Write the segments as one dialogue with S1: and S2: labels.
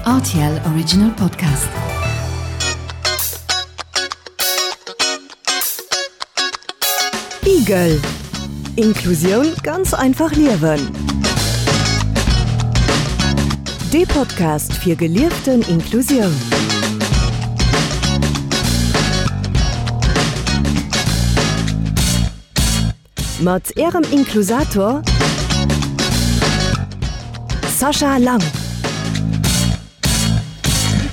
S1: Rtl Original Podcast. Igel Inklusioun ganz einfach liewen. Dee Podcast fir gelieften Inklusioun. Mat Ärem Inklusator Sascha Lang.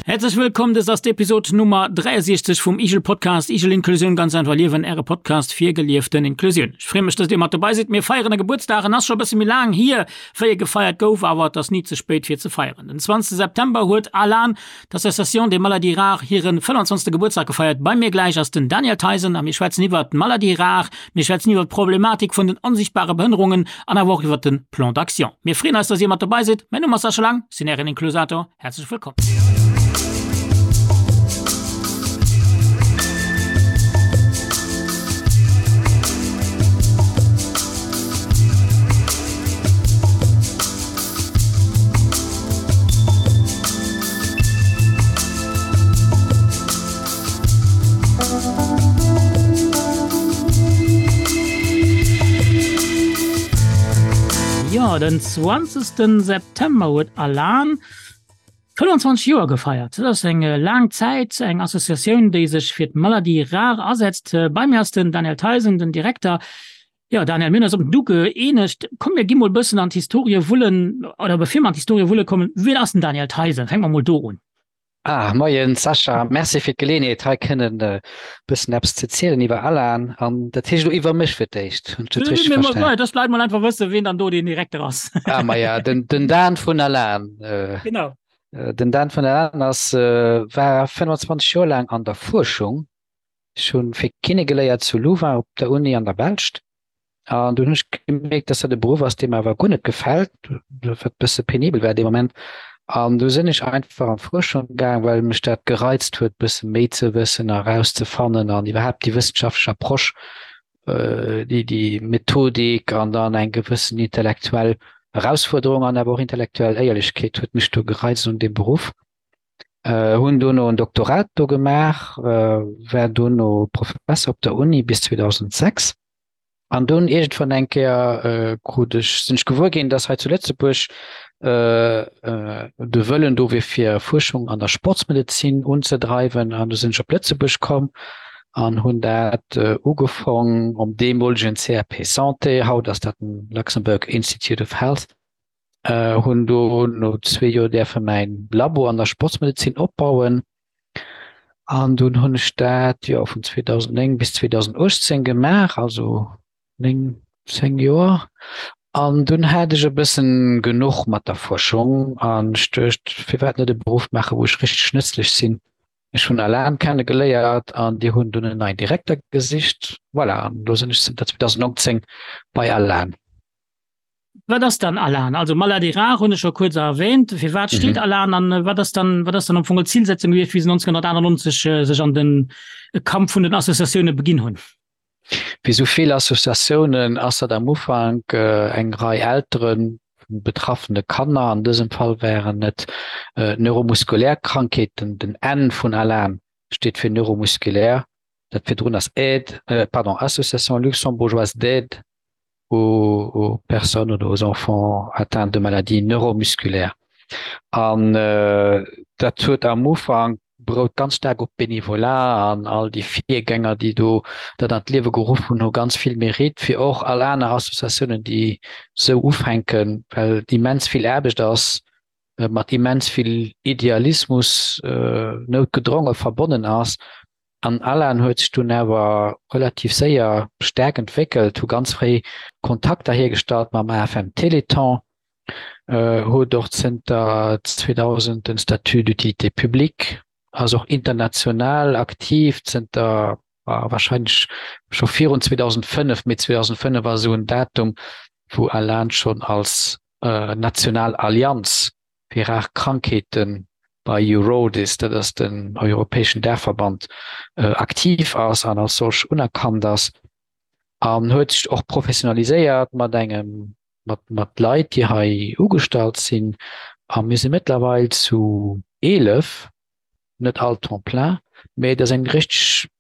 S2: Häerzlech wëllkomm, dëst ass d'Episod Nummer 63 vum Igel Podcast, Igel Inklusioun ganz einfach liewen, äre Podcast fir gelieften Inklusioun. Ech freeë mech, dass dir mat dobei sidd. Mir feieren e Gebuertsdag, en ass scho e bësse méi laang hier, wéi e gefeiert gouf, awer et ass ni ze spéit fir ze feieren. Den 20 September huet ALAN, d'Association des Maladies Rares, hiren 25. Gebuertsdag gefeiert. Bei mir gläich ass den Daniel Theisen a mir schwätzen iwwert d'Maladies rares, Mir schwätzen iwwer d'Problematik vun den onsichtbare Behënnerungen an awer och iwwer den Plan d'action. Mir freeën eis, dass dir mat dobei sidd. Mäin Numm ass Sascha Lang, sinn ären Inklusator. Häerzlech wëllkomm. Jo, den 20. September huet Alan 25 Joer gefeiert. Dat ass eng laang Zäit, eng Associatioun, déi sech fir d'Maladie rare asetzt. Bei mir ass den Daniel Theisen, den Direkter. Jo, Daniel, mir hunn eis op den Du gëeenegt. Komm, mir gi mol e bëssen an d'Historie wullen, oder bevir mer an d'Historie wulle kommen, wien ass den Daniel Theisen? Fänke mer mol do un.
S3: Ah, moien Sascha, merci fir d'Geleeënheet hei kënnen e bëssen eppes ze zielen iwwer Alan an dat heescht elo iwwer mech fir d'éischt. Hunn ech dat richteg
S2: verstanen? Dass d'Leit mol einfach wëssen, wien dann do den Direkter ass.
S3: Ah, maja, den, den Dan vun Alan.
S2: Genau.
S3: Den Dan vun Alan ass, war 25 Joer laang an der Fuerschung. Ech hunn fir Kiné geléiert zu Louvain op der Uni an der Belscht. An dunn hunn ech gemierkt, dass dat e Beruff ass, dee mer awer guer net gefält, wat e bësse penibel war dee Moment. An du sinn ech einfach an d'Fuerschung gaang, well mech dat gereizt huet, bësse méi ze wëssen a rauszefannen an iwwerhaapt déi wëssenschaftlech Approche, déi déi Methodik an dann eng gewëssen intellektuell Erausfuerderung an awer och intellektuell Éierlechkeet huet mech do gereizt un deem Beruff. Hunn dono en Doktorat do gemaach, war dono Professer op der Uni bis 2006. An dunn iergendwann eng Kéier krut ech, sinn ech gewuer ginn, datt hei zu Lëtzebuerg de Wëllen do wier fir Fuerschung an der Sportsmedezin unzedreiwen. An du sinn ech op Lëtzebuerg komm an hunn dat ugefong um deemolegen CRP Santé, haut ass dat den Luxembourg Institute of Health, hunn do no zwee Joer däerfe mäin Labo an der Sportsmedezin opbauen. An dunn hunn ech dat jo vun 2009 bis 2018 gemaach, also 9, 10 Joer. An dunn hat ech e bëssen genuch mat der Fuerschung an ech duecht, firwat net e Beruff maachen, wou ech richteg nëtzlech sinn. Ech hunn Alan kenne geléiert an déi hunn dunn en neien Direkter gesicht. Voilà, an elo sinn ech zënter 2019 bei Alan.
S2: Wat ass dann Alan? Also Maladie rare hunn ech scho kuerz erwähnt. Fir wat steet mhm. Alan an äh, wat ass dann wat ass dann am Fong Zielsetzung gewiescht, wéi se 1998 äh, sech an den äh, Kampf vun den Associatioune beginn hunn?
S3: Wéi sou vill Associatiounen ass dat am Ufank äh, eng Rei Elteren vun betraffene Kanner, an dësem Fall wären et äh, neuromuskulär Krankheeten, den N vun Alan steet fir neuromuskulär, dat virdrun ass Aide, äh, pardon, Association luxembourgeoise d'aide aux, aux personnes oder aux enfants atteints de maladies neuromusculaires. An äh, dat huet am Ufank berout ganz staark op Bénévolat an all déi Virgänger, déi do dat an d'Liewe geruff hunn, hu ganz vill Mérite fir och all aner Associatiounen, déi sou ufänken, well et immens vill Aarbecht ass, mat immens vill Idealismus noutgedronge verbonnen ass. An Alan huet sech dunn awer relativ séier staark entwéckelt, hu ganz fréi Kontakter hiergestallt mam AFM Téléthon, huet och zënter 2000 den Statut d'utilité publique, ass och international aktiv zënter warscheinlech scho virun 2005, mee 2005 ass esou en Datum, wou Alan schonn als national Allianz fir rar Krankheete bei Eurordis, dat ass den europäeschen Daachverband, aktiv ass an als solch unerkannt ass an huet sech och professionaliséiert mat engem mat mat Leit, déi hei ugestallt sinn. A mir si mëttlerweil zu 11, net all Temps plein, mä et ass eng richteg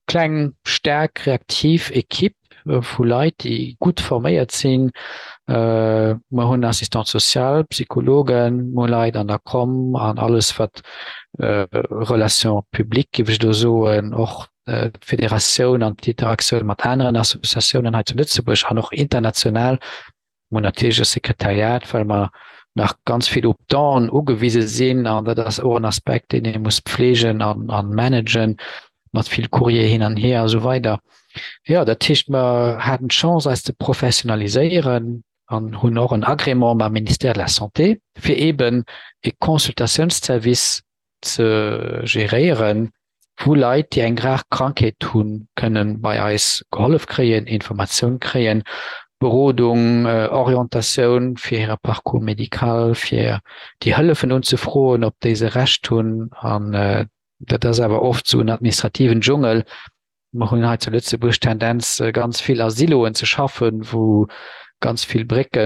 S3: kleng, staark, reaktiv Equipe vu Leit, déi gutt forméiert sinn. Mer hunn Assistante sociale, Psychologen, mer hu Leit an der Com an alles wat Relations publiques, géif ech elo soen, och d'Federatioun an d'Interaktioun mat aneren Associatiounen hei zu Lëtzebuerg an och international. Mer hunn natierlech e Sekretariat, well mer nach ganz vill op Donen ugewise sinn an dat ass och en Aspekt, deen ee muss pflegen a managen, mat vill Courrier hin an hier a sou weider. Jo, dat heescht, mer haten d'Chance, eis ze professionaliséieren an hunn och en Agrément mam Ministère de la Santé, fir eeben e Consultatiounsservice ze geréieren, wou Leit, déi eng rar Krankheet hunn, kënne bei eis gehollef kréien, Informatioun kréien, Berodung, Orientatioun fir hire Parcours médical, fir déi Hëllefen unzefroen, op déi se Recht hunn. An dat ass awer oft esou en administrativen Dschungel. Mer hunn hei zu Lëtzebuerg d'Tendenz, ganz vill a Siloen ze schaffen, wou ganz vill Brécke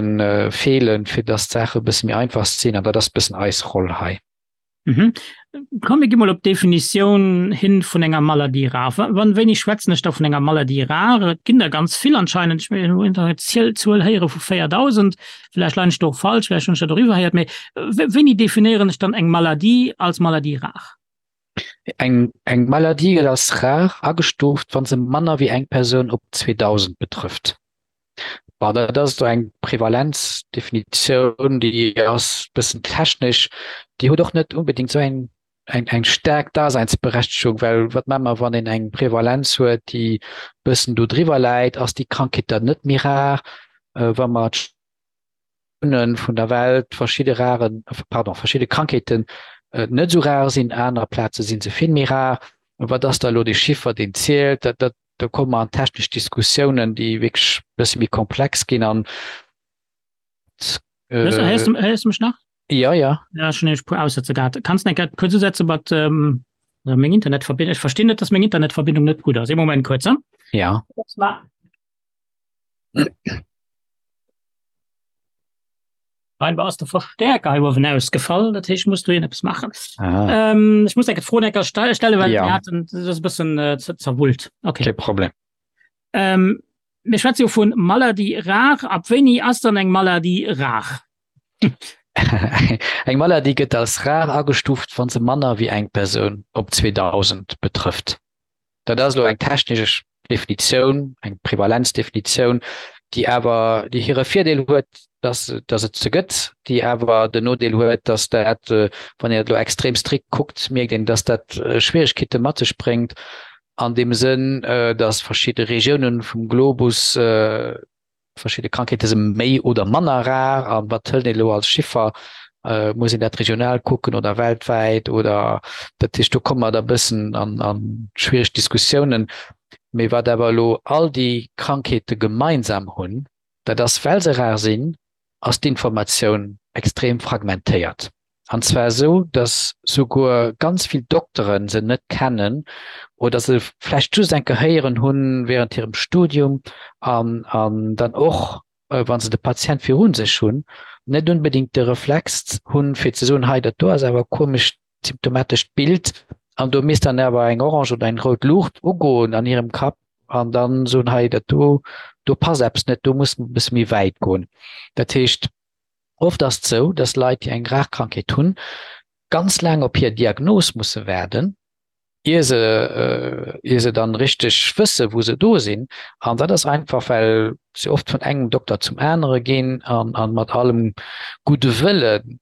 S3: feelen, fir datt d'Saache e bësse méi einfach sinn. An dat ass e bëssen eis Roll hei.
S2: Mhm. Komm mir gi mol op d'Definitioun hin vun enger Maladie rare. Wann wéini schwätzen ech da vun enger Maladie rare? Et ginn der ganz vill anscheinend. Ech hunn eng Zuel héiere vu 4.000. Vläicht leien ech do och falsch, vläicht hunn ech dat och iwwerhéiert. Mee wéini definéieren ech dann eng Maladie als Maladie rare?
S3: Eng eng Maladie gëtt als rar agestuuft, wa se manner wéi eng Persoun op 2.000 betrëfft. Bon, dat ass do eng Prevalenzdefinitioun, déi ass e bëssen technesch, déi huet och net unbedéngt esou eng, eng, eng staark Daseinsberechtegung, well wat maache mer, wann een eng Prevalenz huet, déi e bëssen do driwwer läit, ass déi Krankheet dann net méi rar? Wa mer d'Regiounen vun der Welt verschidde raren, pardon, verschidde Krankheeten net esou rar sinn, aner Plaze si se vill méi rar. Wat ass da elo dee Chiffer, deen zielt? Dat, dat Do komme mer an technesch Diskussiounen, déi wierklech e bësse méi komplex ginn an.
S2: Héiers du, héiers du mech nach?
S3: Ja, ja.
S2: Ja, ech hunn nämlech e puer Aussetzer gehat. Kanns de eng Kéier kuerz usetze mat ähm, meng Internetverbindung? Ech verstinn net, dass meng Internetverbindung net gutt ass. Ee Moment kuerz, hm?
S3: Ja.
S2: Scheinbar ass de Verstärker hei uewen ausgefall, dat heescht, muss do een eppes maachen. Ah. Ähm, ech muss eng Fro enker stellen, well ja. hatten, das ist e bëssen äh, zerwullt.
S3: Okay. Kein Problem.
S2: Ähm, mir schwätze jo vun Maladie rare. Ab wéini ass dann eng Maladie rar?
S3: eng Maladie gëtt als rar agestuft, wann se manner wéi eng Persoun op 2000 betrëfft. Dat ass elo eng technesch Definitioun, eng Prevalenzdefinitioun, déi awer, déi hire Virdeel huet, dass, dass et se gëtt, déi awer den Nodeel huet, dass dat, wann een dat elo extrem strikt kuckt, mierkt een, dass dat Schwierigkeete mat sech bréngt an deem Sënn, dass verschidde Regiounen vum Globus, Verschidde Krankheete si méi oder manner rar an wat hëlt een elo als Chiffer? Muss een dat regional kucken oder weltwäit oder dat heescht do komme mer da bëssen an an schwiereg Diskussiounen. Mee wat awer elo all déi Krankheete gemeinsam hunn, dat ass well se rar sinn, ass d'Informatioun extrem fragmentéiert. An zwar esou, datt souguer ganz vill Doktere se net kennen oder se vläicht just eng Kéier héieren hunn während hirem Studium an an dann och, wa se de Patient viru sech hunn, net unbedéngt de Reflex hunn, fir ze soen, hei dat do ass awer e komescht symptomatescht Bild an do misst dann awer eng orange oder eng rout Luucht ugoen an hirem Kapp an dann soen, hei dat do, do passt eppes net, do muss mer e bësse méi wäit goen. Dat heescht, Oft ass et sou, dass Leit, déi eng rar Krankheet hunn, ganz laang op hir Diagnos musse waarden, ier se, ier se dann richteg wësse wou se do sinn. An dat ass einfach, well se oft vun engem Dokter zum anere ginn an, an mat allem gudde Wëllen,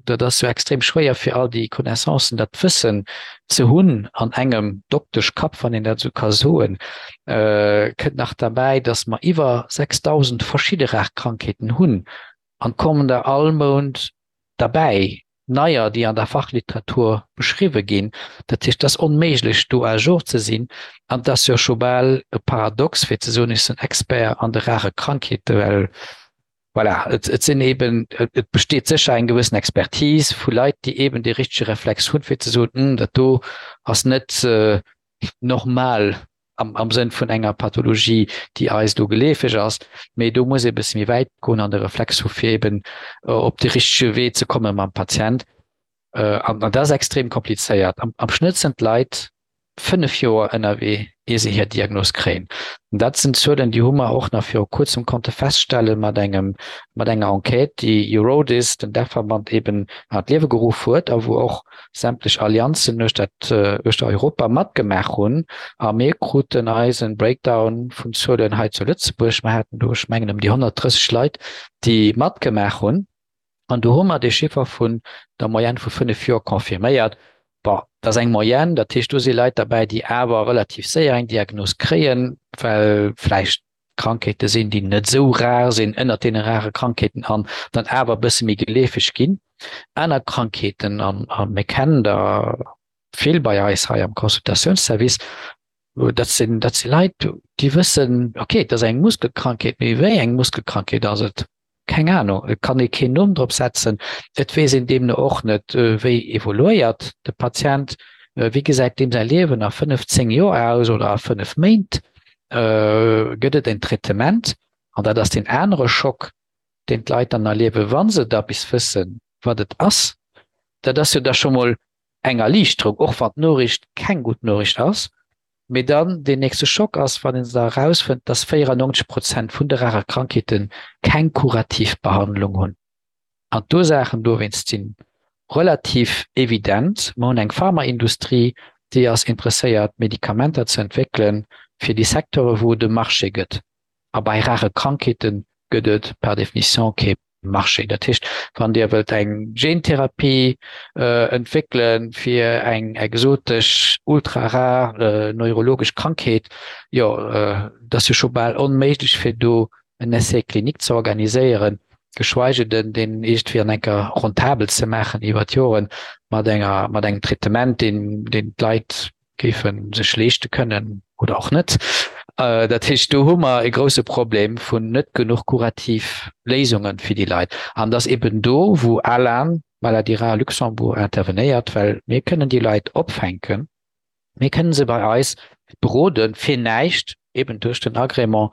S3: dat ass jo extrem schwéier fir all déi Connaissancen, dat Wëssen ze hunn an engem Dokteschkapp, wann een dat esou ka soen. Kënnt nach derbäi, dass mer iwwer 6.000 verschidde rar Krankheeten hunn an kommen der all Mount derbäi, neier, déi an der Fachliteratur beschriwwe ginn. Dat heescht, et ass onméiglech, do à jour ze sinn. An et ass jo scho bal e Paradox, fir ze soen, ech sinn Expert an de rare Krankheeten, well voilà, et, et sinn eben, et besteet sécher eng gewëssen Expertise vu Leit, déi eben dee richtege Reflex hunn, fir ze soen, Hm, dat do ass net normal. am, am Sënn vun enger Pathologie, déi eis do geleefeg ass, mee do muss ee bësse méi wäit goen an de Reflex hu fir eben op de richtege Wee ze komme mam Patient. An dat ass extrem komplizéiert. Am, am Schnëtt sinn d'Leit 5 Joer ënnerwee, ier se hir Diagnos kréien. An dat sinn Zuelen, déi hu mer och nach viru kuerzem konnte feststelle mat engem, mat enger Enquête, déi Eurodis, den Dachverband, eben an d'Liewe geruff huet a wou och sämtlech Allianzen uechter uechter Europa matgemaach hunn. A mir kruten eisen Breakdown vun Zuelen hei zu Lëtzebuerg. Mer haten do, ech mengen, ëm déi 130 Leit, déi matgemaach hunn. An do hu mer dee Chiffer vun der Moyenne vu 5 Joer confirméiert. Bon, dat ass eng Moyenne, dat heescht, do si Leit derbäi, déi awer relativ séier eng Diagnos kréien, well vläicht Krankheete sinn, déi net esou rar sinn, ënnert deene rare Krankheeten an dann awer e bësse méi geleefeg ginn. Aner Krankheeten, a mir kennen der vill bei eis hei am Consultatiounsservice, dat sinn, dat si Leit, déi wëssen, okay, et ass eng Muskelkrankheet, mee wéi eng Muskelkrankheet ass et? Keng Anung, et kann ee keen Numm drop setzen. Et weess een deemno och net, wéi evoluéiert de Patient, wéi gesäit deem säi Liewen a 5, 10 Joer aus oder a 5 Méint. Gëtt et en Traitement? An dat ass deen anere Schock, deen d'Leit dann erliewen, wa se da bis wëssen, wat et ass. Dat ass jo da scho mol eng Erliichterung, och wann d'Noriicht keng gutt Noriicht ass. Mee dann deen nächste Schock ass, wann een da erausfënnt, dass 94 Prozent vun de rare Krankheete keng kurativ Behandlung hunn. An d'Ursaachen dowéinst si relativ evident, Mer hunn eng Pharmaindustrie, déi ass interesséiert, Medikamenter ze entwéckelen fir déi Secteure wou et e Marché gëtt. A bei rare Krankheete gëtt et par définition kee Marché. Dat heescht, wann Dir wëllt eng Gentherapie entwéckele fir eng exotesch, ultra-rar neurologesch Krankheet, jo, dat ass jo scho bal onméiglech fir do en Essai clinique ze organiséieren, geschweige den deen iergendwéi an enker rentabel ze maachen iwwer d'Joren mat enger, mat engem Traitement, deen, deen d'Leit géife sech leeschte kënnen oder och net. Dat heescht, do hu mer e grouse Problem vun net genuch kurativ Léisunge fir déi Leit. An et ass eben do, wou ALAN, Maladies rares Luxembourg, intervenéiert, well mir kënnen déi Leit opfänken, mir kënnen se bei eis beroden, fir näischt, eben duerch den Agrément,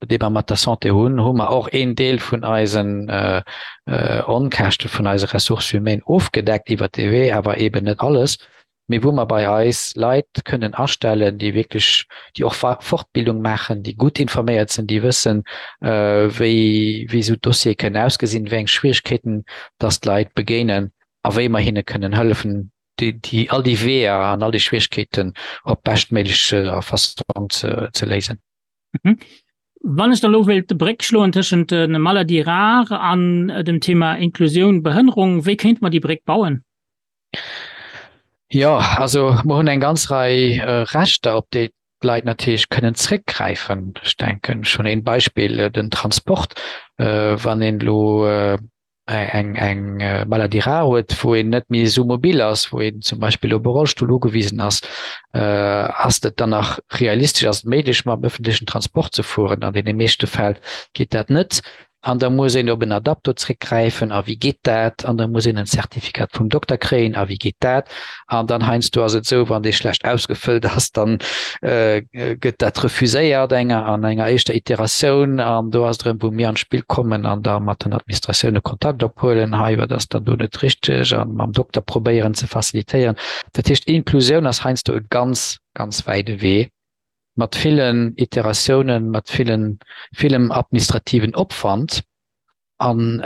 S3: dee mer mat der Santé hunn, hu mer och een Deel vun eisen Onkäschte vun eise Ressources humaines ofgedeckt iwwert dee Wee, awer eben net alles, mee wou mer bei eis Leit kënnen astellen, déi wierklech, déi och Fortbildung maachen, déi gutt informéiert sinn, déi wëssen, wéi wéi esou Dossiere kënnen ausgesinn, wéi eng Schwierigkeeten dass d'Leit begéinen a wéi mer hinne kënnen hëllefen, déi, déi, all déi Weeër an all déi Schwierigkeeten op beschtméiglech Fassong ze, ze léisen.
S2: Mhm. Wann ech da lo wéilt d'Bréck schloen tëschent de Maladies rares an dem Thema Inklusioun, Behënnerung, wéi kéinte mer déi Bréck bauen?
S3: Jo, also mer hunn eng ganz Rei Rechter, op déi d'Leit natierlech kënnen zréckgräifen. Ech denken schonn een Beispill, den Transport. Wann een elo eng eng Maladie rare huet, wou een net méi esou mobil ass, wou een zum Beispill op e Rollstull ugewisen ass, ass et dann nach realistesch, ass et méiglech mam ëffentlechen Transport ze fueren? An deene meeschte Fäll geet dat net. An da muss een op en Adapto zréckgräifen. A wéi geet dat? An da muss een en Zertifikat vum Dokter kréien. A wéi geet dat? An dann heiansdo ass et esou, wann dee schlecht ausgefëllt ass, dann gëtt dat refuséiert enger an enger éischter Iteratioun. An do ass et erëm, wou mir an d'Spill kommen an da mat den Administratioune Kontakt ophuelen, hei, wat ass dann do net richteg, a mam Dokter probéieren ze facilitéieren. Dat heescht, Inklusioun ass heiansdo e ganz, ganz wäide Wee mat villen Iteratiounen, mat villen, villem administrativen Opwand. An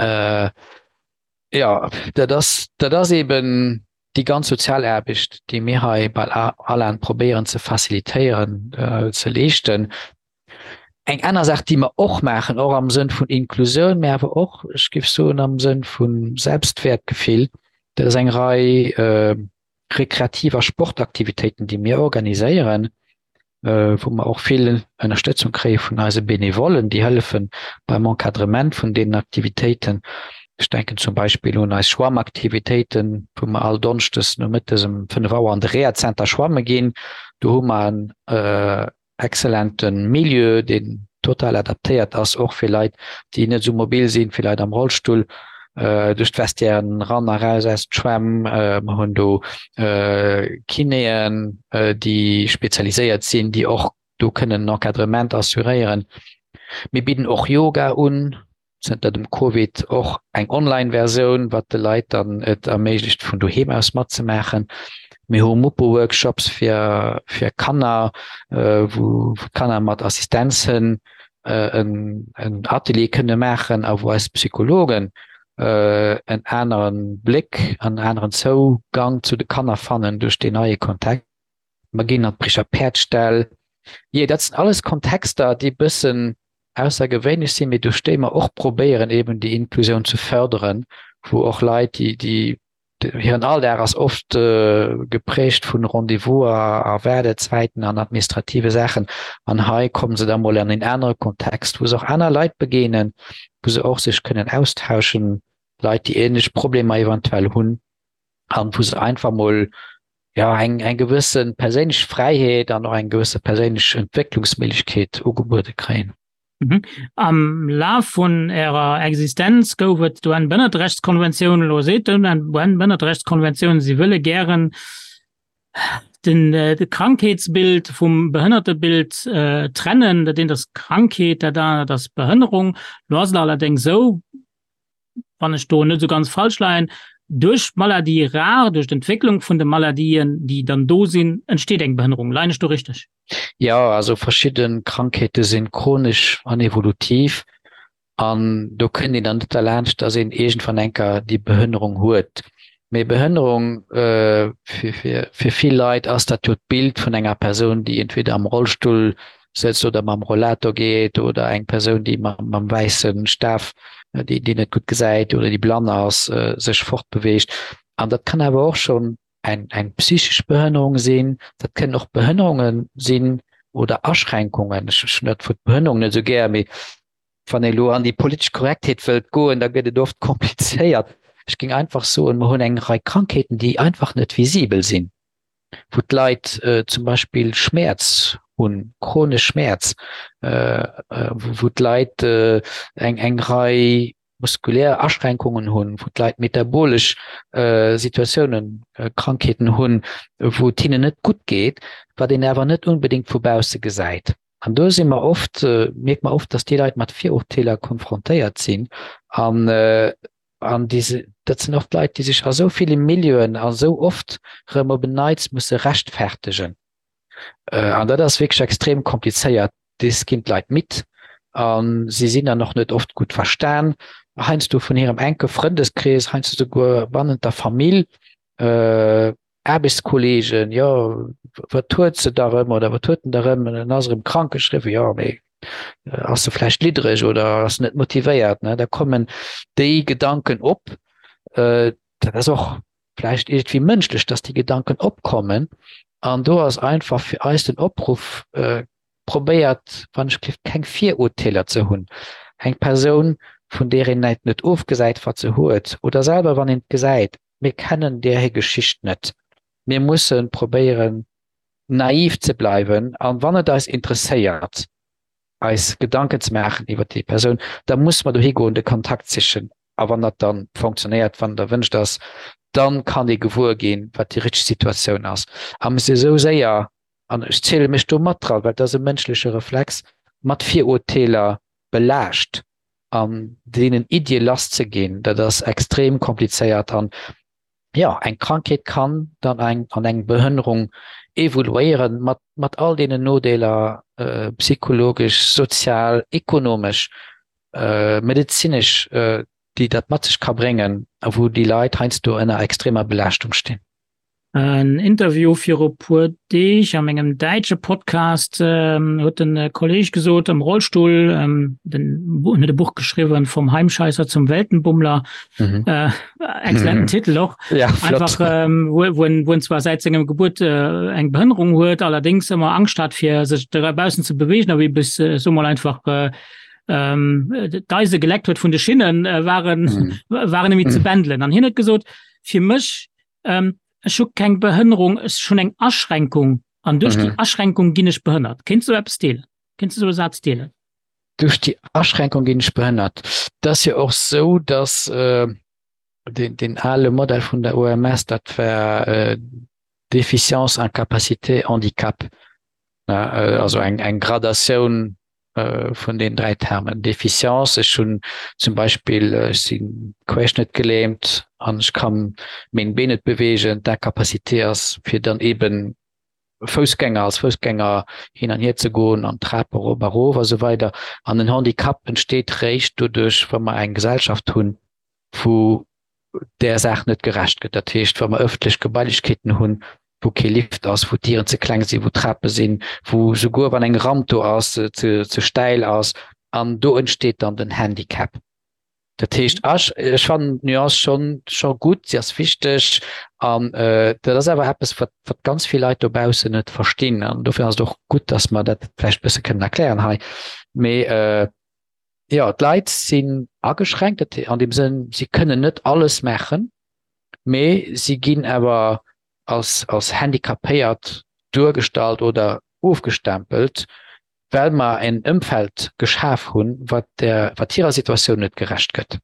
S3: Jo, dat ass, dat ass eben déi ganz sozial Aarbecht, déi mir hei bei ALAN probéieren ze facilitéieren, ze leeschten. Eng aner Saach, déi mer och maachen, och am Sënn vun Inklusioun, mä awer och, ech géif soen, am Sënn vu Selbstwäertgefill, dat ass eng Rei rekreativ a Sportaktivitéiten, déi mir organiséieren, wou mer och vill Ënnerstëtzung kréie vun eise Benevollen, déi hëllefe beim Encadrement vun deenen Aktivitéiten. Ech denken zum Beispill un eis Schwammaktivitéiten, wou mer all Donneschdes nomëttes um 5 Auer an de Rehazenter schwamme ginn. Do hu mer en excellente Milieu, deen total adaptéiert ass, och fir Leit, déi net esou mobil sinn, fir Leit am Rollstull, duerch d'Vestiairen eran a raus aus d'Schwämm. Mer hunn do Kinéen, déi spezialiséiert sinn, déi och. do kënnen en Encadrement assuréieren. Mir bidden och Yoga un, zënter dem Covid och eng Online-Versioun, wat de Leit dann et erméiglecht vun doheem aus matzemaachen. Mir hu Mupo-Workshops fir fir Kanner, wou d'Kanner mat Assistenzhënn en en Atelier kënne maachen a wou eis Psychologen en anere Bléck an en aneren Zougang zu de Kanner fannen duerch deen neie Kontext. Mer ginn an d'Bricher Päerdställ. Jee, dat sinn alles Kontexter, déi e bëssen aussergewéinlech sinn, mee duerch déi mer och probéieren, eben déi Inklusioun ze förderen, wou och Leit, déi, déi hiren Alldag ass oft geprägt vun Rendez-vouser a Waardezäiten an administrative Saachen, an hei kommen se da mol an een anere Kontext, wou se och aner Leit begéinen, wou se och sech kënnen austauschen, Leit, déi ähnlech Problemer eventuell hunn, an wou se einfach mol jo eng eng gewësse perséinlech Fräiheet an och eng gewësse perséinlech Entwécklungsméiglechkeet ugebuede kréien.
S2: Mhm. Am Laf vun Ärer Existenz gouf et d'UN-Bënnerterechtskonventioun. Elo seet d'UN-Bënnerterechtskonventioun, si wëlle gären den de Krankheetsbild vum Behënnertebild trennen. Dat eent ass Krankheet, dat anert ass Behënnerung. Elo ass et allerdéngs esou, wann ech do net esou ganz falsch leien, duerch d'Maladie rare, duerch d'Entwécklung vun de Maladien, déi dann do sinn, entsteet eng Behënnerung. Leien ech do richteg?
S3: Jo, also verschidde Krankheete sinn chronesch an evolutiv an do kënnt een dann net derlaanscht, dass een iergendwann eng Kéier déi Behënnerung huet. Mee Behënnerung, fir vill Leit ass dat jo d'Bild vun enger Persoun, déi entweder am Rollstull sëtzt oder mam Rollator geet oder eng Persoun, déi mam wäisse Staf, déi net gutt gesäit oder déi blann ass, sech fortbeweegt. An dat kann awer och schonn eng psychesch Behënnerung sinn, dat kënnen och Behënnerunge sinn oder Aschränkungen. Ech hunn dat Wuert Behënnerung net esou gär, mee Wann ee lo an déi politesch Korrektheet wëllt goen, da gëtt et oft komplizéiert. Ech géing einfach soen, mer hunn eng Rei Krankheeten, déi einfach net visibel sinn, wou d'Leit zum Beispill Schmäerz hunn, chronesch Schmäerz, wou d'Leit eng eng Rei muskulär Aschränkungen hunn, wou d'Leit metabolesch Situatiounen, Krankheeten hunn, wou et hinnen net gutt geet, wat een awer net unbedéngt vu bausse gesäit. An do si mer oft, mierke mer oft, dass déi Leit mat Virurteeler konfrontéiert sinn. An, an déi, dat sinn oft Leit, déi sech a sou ville Milieuen a sou oft erëm op en Neits musse rechtfertegen. An dat ass wierklech extrem komplizéiert. Des ginn d'Leit midd a si sinn dann och net oft gutt verstan, heiansdo vun hirem enke Frëndeskrees, heiansdo souguer bannent der Famill. Aarbechtskolleegen, jo, wat huet se da rëm oder wat huet en da rëm, en ass erëm krank geschriwwen, jo, mee ass se vläicht liddereg oder ass net motivéiert, ne? Da kommen déi Gedanken op. Dat ass och vläicht iergendwéi mënschlech, dass déi Gedanken opkommen. An do ass einfach fir eis den Opruff, probéiert wann ech gelift keng Virurteeler ze hunn. Eng Persoun, vun där een net ofgesäit, wat se huet, oder selwer wann een et gesäit, Mir kennen där hir Geschicht net. Mir musse probéieren, naiv ze bleiwen an wann et eis interesséiert, eis Gedanken ze maachen iwwer déi Persoun, da musse mer dohi goen, de Kontakt sichen. A wann dat da fonctionnéiert, wann et erwënscht ass, da kann ee gewuer ginn, wat déi richteg Situatioun ass. A mir si esou séier, an ech ziele mech do mat dran, well et ass e mënschleche Reflex, mat Virurteeler belaascht an deenen Iddie lass ze ginn, dat ass extrem komplizéiert an jo, eng Krankheet kann dann eng an eng Behënnerung evoluéieren mat mat all deenen Nodeeler, psychologesch, sozial, ekonomesch, medezinesch, déi dat mat sech ka bréngen a wou déi Leit heiansdo ënner extremer Belaaschtung stinn.
S2: En Interview viru puer Deeg a mengem däitsche Podcast huet de Kolleg gesot, am Rollstull, den huet e Buch geschriwwen, Vom Heimscheißer zum Weltenbummler, mhm. äh, exzellenten mhm. Titel och. Ja, einfach ähm, wo, wo, en, wo en zwar säit sengem Gebuert äh, eng Behënnerung huet, allerdéngs ëmmer Angscht hat fir sech draussen ze bewegen, a wéi bis äh, so mal einfach äh, ähm, d'Eise geleckt huet vun de Schinnen, äh, waren, mhm. waren nemmi ze mhm. bändelen. An hien huet gesot, fir mech ähm, ech hu keng Behënnerung, ech hunn eng Aschränkung an duerch mhm. déi Aschränkung ginn ech behënnert. Kéints du eppes deelen? Kéints du sou e Saz deelen?
S3: Duerch déi Aschränkung ginn ech behënnert. Dat ass jo och sou, dass äh, den, den ale Modell vun der OMS, dat war äh, Déficience, Incapacité, Handicap. Also eng eng Gradatioun vun den 3 Termen. Déficience, ech hunn zum Beispill, ech si querschnëttgelähmt an ech kann meng Been net beweegen. D'Incapacité ass fir dann eben Foussgänger, als Foussgänger hin an hier ze goen an d'Trap erop a rof a sou weider. An den Handicap entsteet réischt doduerch, wa mer eng Gesellschaft hunn, wou där Saach net gerecht gëtt. Dat heescht, wa mer ëffentlech Gebailechkeeten hunn, wou kee Lift ass, wou d'Dieren ze kleng sinn, wou Trape sinn, wou souguer wann eng Ramp do ass, se ze stäil ass, an do entsteet dann den Handicap. Dat heescht, ech, ech fannen d'Nuance schonn, scho gutt, si ass wichteg an dat ass awer eppes, wat, wat ganz vill Leit dobaussen net verstinn. An dofir ass et och gutt, dass mer dat vläicht e bësse kënnen erklären hei. Mee jo, d'Leit sinn ageschränkt, dat an deem Sënn, si kënnen net alles maachen, mee si ginn awer als, als handicapéiert duergestallt oder ofgestempelt, well mer en Ëmfeld geschaf hunn, wat der, wat hirer Situatioun net gerecht gëtt.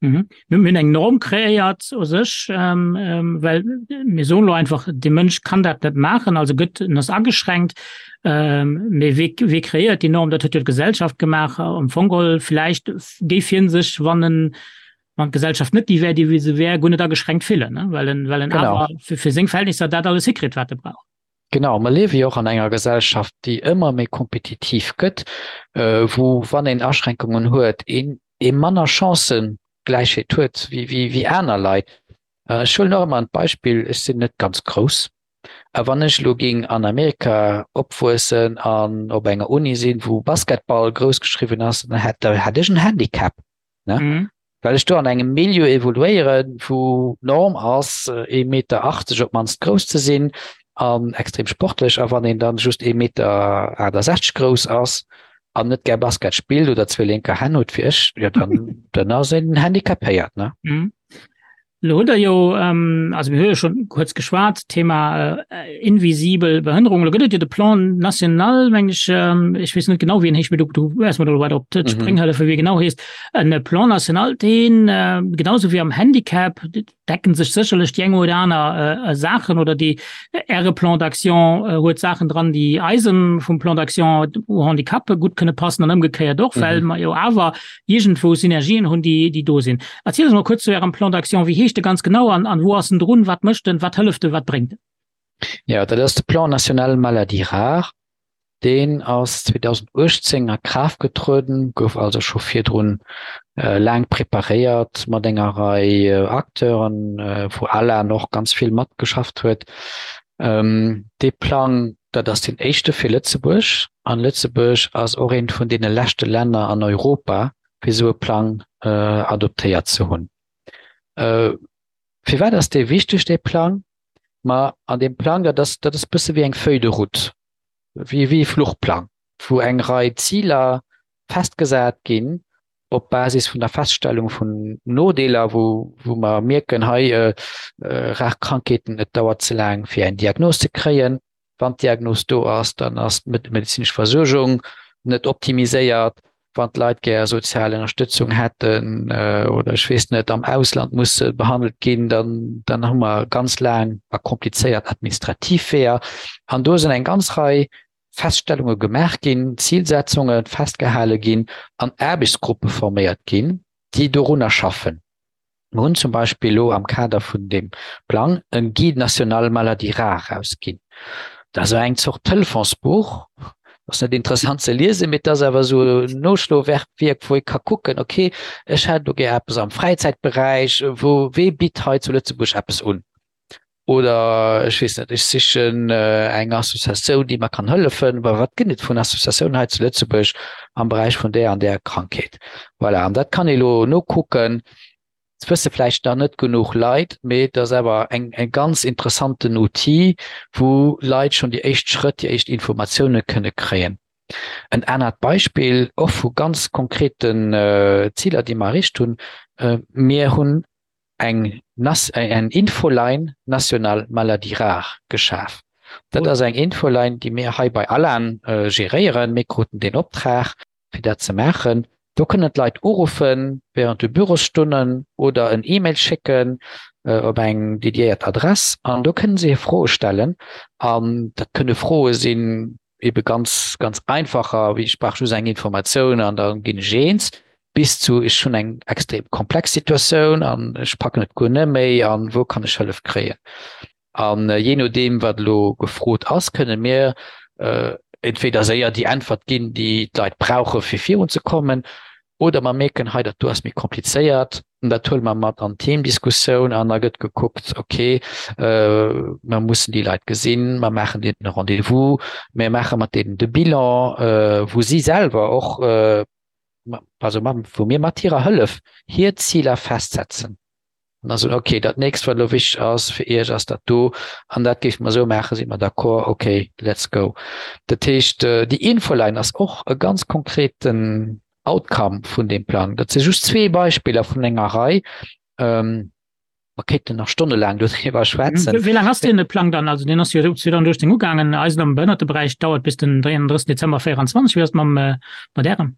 S2: Mhm. Mir hunn eng Norm kreéiert u sech, ähm, ähm, well mir soen elo einfach, de Mënsch kann dat net maachen, also gëtt en ass ageschränkt. Ähm, mee wee, wee kreéiert déi Norm? Dat huet jo d'Gesellschaft gemaach. Am Fong geholl vläicht géif hien sech, wann en, wann d'Gesellschaft net déi wär, déi wéi se wär, guer net ageschränkt fillen, ne? Well en, well en awer fir, fir seng Verhältnisser dat alles hikritt, wat e brauch.
S3: Genau, mer liewe jo och an enger Gesellschaft, déi ëmmer méi kompetitiv gëtt, wou, wann een Aschränkungen huet, een ee manner Chancëgläichheet huet wéi aner Leit. Ech huelen och ëmmer an d'Beispill, ech sinn net ganz grouss, a wann ech elo géing an Amerika opwuessen an op enger Uni sinn, wou Basketball grouss geschriwwen ass, dann hätt ech en Handicap. Ne? Mhm. Well ech do an engem Milieu evoluéieren, wou d'Norm ass, ee Meter 80 op d'mannst grouss ze sinn an extrem sportlech. A wann een dann just ee Meter 68 grouss ass an net gär Basket spillt oder zwee lénker Hänn huet wéi ech, jo dann, dann ass een handicapéiert, ne?
S2: Mhm. Lo hutt Der jo, also mir hu jo schonn kuerz geschwat, Thema invisibel Behënnerung. Lo gëtt et jo de Plan national, meng ech, ech weess net genau, wéi en heescht, mee du, du wäers mer do weider op d'Spréng hëllefen, wéi e genau heescht. En Plan national, deen, genau esou wéi am Handicap, decken sech sécherlech déi eng oder aner Saachen oder déi Äre Plan d'action huet Saachen dran, déi eisem vum Plan d'action au handicap gutt kënne passen an ëmgekéiert och, well mer jo awer iergendwou Synergien hunn, déi, déi do sinn. Erzielt eis mol kuerz zu Ärem Plan d'action. Wéi heescht e ganz genau an, an wou ass en drun? Wat mécht en? Wat hëlleft en? Wat bréngt en?
S3: Jo, dat ass de Plan national maladies rares. Deen ass 2018 a Kraaft getrueden, gouf also scho virdrun laang preparéiert mat enger Rei Acteuren, wou ALAN och ganz vill matgeschafft huet. Dee Plang, dat ass deen éischte fir Lëtzebuerg, an Lëtzebuerg ass och eent vun deene leschte Länner an Europa, fir esou e Plang adoptéiert ze hunn. Firwat ass dee wichteg, dee Plang? Ma an deem Plang, dat ass, dat ass e bësse wéi eng Feuille de route, wéi e Fluchplang, wou eng Rei Ziler festgesat ginn op Basis vun der Feststellung vun Nodeeler, wou, wou mer mierken, hei rar Krankheeten, et dauert ze laang fir eng Diagnos ze kréien. Wann d'Diagnos do ass, dann ass d'medezinesch Versuergung net optimiséiert. Wann d'Leit gär sozial Ënnerstëtzung hätten oder ech weess net, am Ausland musse behandelt ginn, dann, dann hu mer ganz laang a komplizéiert administrativ Weeër. An do sinn eng ganz Rei Feststellunge gemaach ginn, Zilsetzunge festgehale ginn an Aarbechtsgruppe forméiert ginn, déi dorunner schaffen. Mir hunn zum Beispill elo am Kader vun deem Plang e Guide national maladies rares erausginn. Dat ass eng Zort Telefonsbuch, ass net interessant ze liesen, mee et ass awer esou en Noschlowierk, wou ee ka kucken, okay, ech hätt elo gär eppes am Fräizäitberäich, wou, wee bitt hei zu Lëtzebuerg eppes un? Oder ech weess net, ech sichen eng Associatioun, déi mer kann hëllefen. Wa wat gëtt et vun Associatiounen hei zu Lëtzebuerg am Beräich vun där an där Krankheet? Voilà, an dat kann ee lo nokucken. Dat wësse vläicht nach net genuch Leit, mee et ass awer eng e ganz interessanten Outil, wou Leit schonn déi éischt Schrëtt, déi éischt Informatioune kënne kréien. En anert Beispill och vu ganz konkreten Ziler, déi mer erreecht hunn, Mir hunn eng eng Infoline nationale maladies rares geschaf. Dat ass eng Infoline, déi mir hei bei ALAN geréieren. Mir kruten deen Optrag, fir dat ze maachen. Do kënnen d'Leit uruffen während de Bürosstonnen oder en E-Mail schécken op eng dediéiert Adress an do kënnen se hir Froe stellen. An dat kënne Froe sinn. ebe ganz ganz einfacher, wéi ech brauch just eng Informatioun an da ginn ech eens, bis zu ech hunn eng extrem komplex Situatioun an ech packen et guer net méi an wou kann ech Hëllef kréien. An jee nodeem wat elo gefrot ass, kënne mir entweder séier déi Äntwert ginn, déi d'Leit brauche fir virun ze kommen, oder mer mierken, hei dat do ass méi komplizéiert, dat huele mer mat an d'Teamdiskussioun an da gëtt gekuckt, okay, mer mussen déi Leit gesinn, mer maachen deenen e Rendez-vous, mer maache mat deenen de Bilan, wou si selwer och, also wou mir mat hirer Hëllef hir Ziler festsetzen. An da soen, okay, dat nächst, wat elo wichteg ass fir Iech, ass dat do, an dat géife mer esou maachen, si mer d'accord, okay, let's go. Dat heescht, déi Infoline ass och e ganz konkreten Outcome vun deem Plang. Dat si just zwee Beispiller vun enger Rei. Mer kéinten nach stonnelaang doriwwer schwätzen.
S2: Wéi laang ass deen Plang dann? Also deen ass jo 2018 ugaangen. Eisen am Behënnerteberäich dauert bis den 33 Dezember 24. Wéi ass et mam, mat Ärem?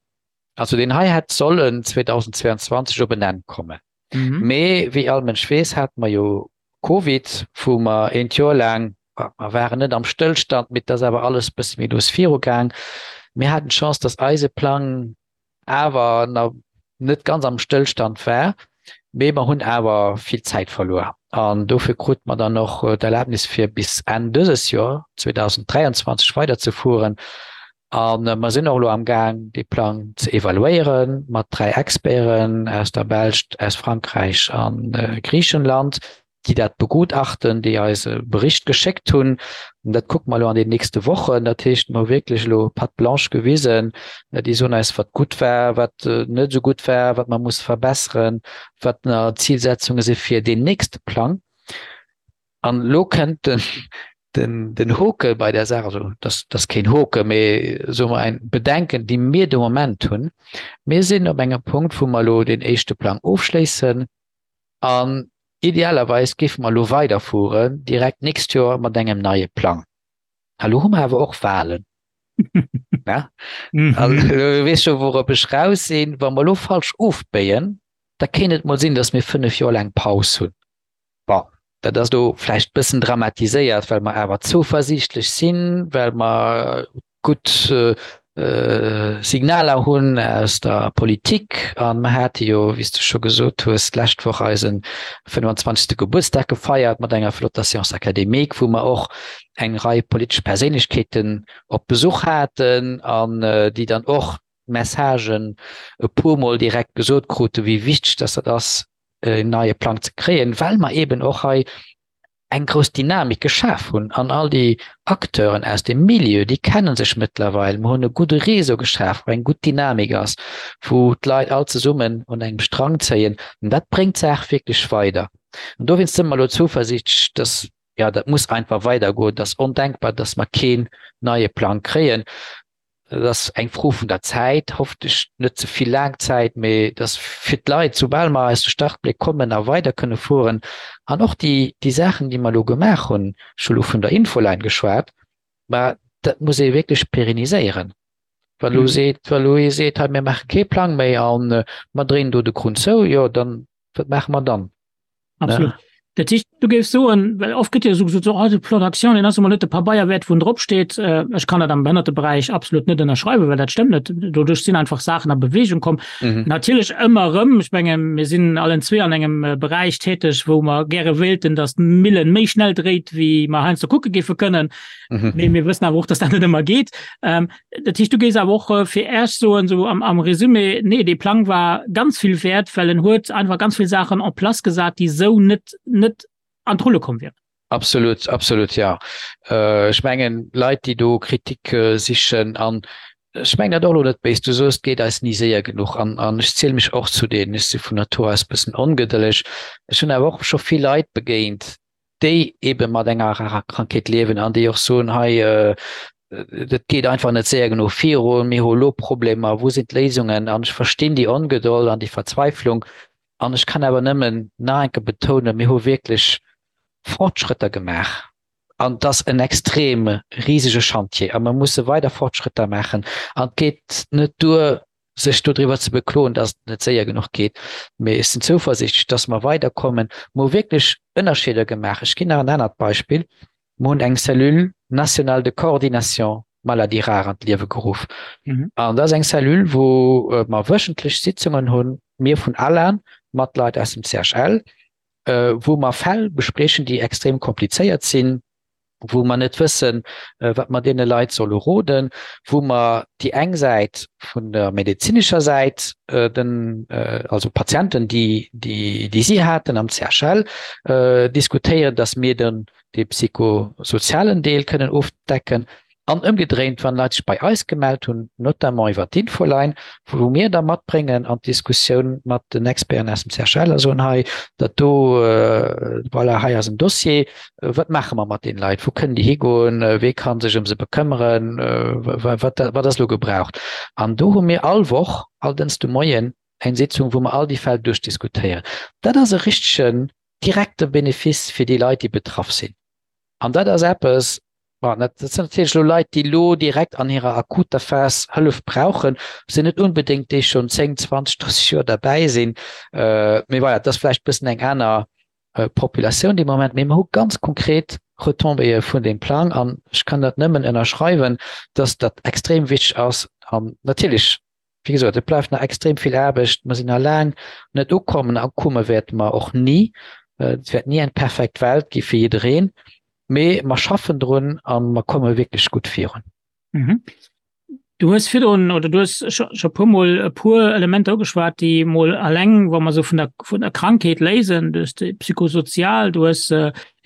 S3: Also deen hei hätt sollen 2022 op en Enn kommen. Mhm. Mee wéi all Mënsch weess, hate mer jo Covid, wou mer eent Joer laang, mer waren net am Stëllstand, mee et ass awer alles e bësse méi lues virugaang. Mir haten d'Chance, dass eise Plang awer nach net ganz am Stëllstand war, mee mer hunn awer vill Zäit verluer. An dofir krute mer dann och d'Erlaabnis, fir bis Enn dëses Joer, 2023, weiderzefueren. A mer sinn och elo am Gaang, dee Plang ze evaluéiere mat 3 Experten aus der Belsch, aus Frankräich a Griichenland, déi dat begutachten, déi eis e Bericht geschéckt hunn. An dat kucke mer elo an den nächste Wochen. Dat heescht, mer hu wierklech elo Patte blanche gewisen. Déi soen eis, wat gutt war, wat net esou gutt war, wat mer musse verbesseren, wat nach Zilsetzunge si fir deen nächste Plang. An elo kënnt den, den, den Hoke bei der Saach, also das, das keen Hoke, mee soe mer ein Bedenken, déi mir de Moment hunn. Mir sinn op engem Punkt, wou mer elo deen éischte Plang ofschléissen an idealerweis géife mer elo weiderfueren direkt d'nächst Joer mat engem neie Plang. A lo hu mer awer och Wahlen. Ja? Mhm. Also, du weess scho, wourop ech raus sinn. Wa mer elo falsch ofbéien, da kéint et mol sinn, datt mir 5 Joer laang Paus hunn. Bon, dat ass elo vläicht e bëssen dramatiséiert, well mer awer zouversiichtlech sinn, well mer gutt Signaler hunn aus der Politik. A mer hate jo, wéi s de scho gesot hues, d'lescht Woch eise 25. Gebuertsdag gefeiert mat enger flotter Séance académique, wou mer och eng Rei politesch Perséinlechkeeten op Besuch haten an déi dann och d'Messagen e puermol direkt gesot kruten, wéi wichteg dass dat ass, en neie Plang ze kréien, well mer eben och hei eng grouss Dynamik geschaf hunn an all déi Acteuren aus dem Milieu, déi kenne sech mëttlerweil. Mer hunn e gudde Réseau geschaf, wou eng gutt Dynamik ass, wou d'Leit all zesummen un engem Strang zéien. An dat bréngt d'Saach wierklech weider. An dowéinst si mer elo zuversiichtlech, dass, jo, dat muss einfach weidergoen. Et ass ondenkbar, dass mer keen neie Plang kréien. Dat ass eng Fro vun der Zäit, hoffentlech net ze vill laang Zäit, mee dass fir d'Leit, soubal mer aus de Startbléck kommen a weider kënne fueren an och déi, déi Saachen, déi mer elo gemaach hunn, ech hu elo vun der Infoline geschwat, mä dat muss ee wierklech pérenniséieren. Wa elo seet, wa elo ee seet, hei mir maache kee Plang méi a mer dréinen do de Krunn zou, jo dann, wat maache mer dann?
S2: Absolut. Ja. Dat heescht, du géifs soen, well oft gëtt jo esou gesot, so, oh, de Plan d'action, deen ass emol net de Pabeier wäert, wou en drop steet. Äh, ech kann dat am Behënnerteberäich absolut net ënnerschreiwen, well dat stëmmt net. Doduerch sinn einfach Saachen a Bewegung komm. Mhm. Natierlech ëmmer erëm, ech menge mir sinn allen zwee an engem äh, Beräich täteg, wou mer gäre wéilten, datt d'Millen méi schnell dréit, wéi mer heiansdo kucke géife kënnen. Mhm. Mee mir wëssen awer och, datt dat net ëmmer geet. Ähm, Dat heescht, du géifs awer och fir Äech soen, esou am, am Resumé, nee, dee Plang war ganz vill wäert, well en huet einfach ganz vill Saachen en place gesat, déi esou net, net an d'Rulle komm wieren.
S3: Absolut, absolut, jo. Ech mengen, Leit, déi do Kritik sichen, an ech mengen dat och elo net béis, du soos, et geet eis ni séier genuch, an, an ech ziele mech och zu deenen, ech si vun Natur aus e bëssen ongedëlleg, ech hunn awer och scho vill Leit begéint, déi ebe mat enger rarer Krankheet liewen an déi och soen, hei dat geet einfach net séier genuch virun, mir hu elo Problemer, wou sinn d'Léisungen? An ech verstinn déi Ongedold an déi Verzweiflung an ech kann awer nëmmen nach eng Kéier betounen, mir hu wierklech Fortschrëtter gemaach an et ass en extrem risege Chantier a mer musse weider Fortschrëtter maachen an et geet net duer, sech dodriwwer ze bekloen, dass et net séier genuch geet, mee ech sinn zouversiichtlech, dass mer weiderkommen. Mer hu wierklech Ënnerscheeder gemaach. Ech ginn nach en anert Beispill, Mer hunn eng Cellule nationale de coordination. Maladie rare an d'Liewe geruff. Mhm. An dat ass eng Cellule, wou äh, mer wöchentlech Sitzungen hunn, mir vun ALAN mat Leit aus dem CHL, äh, wou mer Fäll bespriechen, déi extrem komplizéiert sinn, wou mer net wëssen, äh, wat mer deene Leit solle roden, wou mer déi eng Säit vun der medezinescher Säit, äh, den, äh, also Patienten, déi, déi, déi si haten am CHL, äh, diskutéieren, dass mir den dee psychosozialen Deel kënnen ofdecken an ëmgedréint, wann Leit sech bei eis gemellt hunn, notamment iwwer d'Infoline, wou mir da matbréngen an d'Diskussioun mat den Experten aus dem CHL a soen, hei, dat do, voilà, hei ass en Dossier, wat maache mer mat deene Leit, wou kënnen déi higoen, wee ka sech ëm se bekëmmeren, wat wat ass elo gebraucht? An do hu mir all Woch, all Dënschde Moien eng Sitzung, wou mer all déi Fäll duerchdiskutéieren. Dat ass e richtegen direkte Benefice fir déi Leit, déi betraff sinn. An dat ass eppes, bon, dat sinn natierlech elo Leit, déi elo direkt an hirer akuter Phas Hëllef brauchen, sinn net unbedéngt déi schonn 10, 20, 30 Joer derbäi sinn. Mee voilà, dat ass vläicht e bëssen eng aner Populatioun dee Moment. Mee mer hu ganz konkret Retombéeë vun deem Plang an ech kann dat nëmmen ënnerschreiwen, dass dat extrem wichteg ass. An natierlech Wéi gesot, et bleift nach extrem vill Aarbecht. Mer sinn nach laang net ukommen a komme wäerte mer och ni. Et wäert ni eng perfekt Welt gi fir jiddereen, mee mer schaffen drun a mer komme wierklech gutt virun.
S2: Du hues virdrun oder du hues scho e puermol e puer Elementer ugeschwat, déi mol alleng, wa mer esou vun der, vun der Krankheet léisen, du hues déi psychosozial, du hues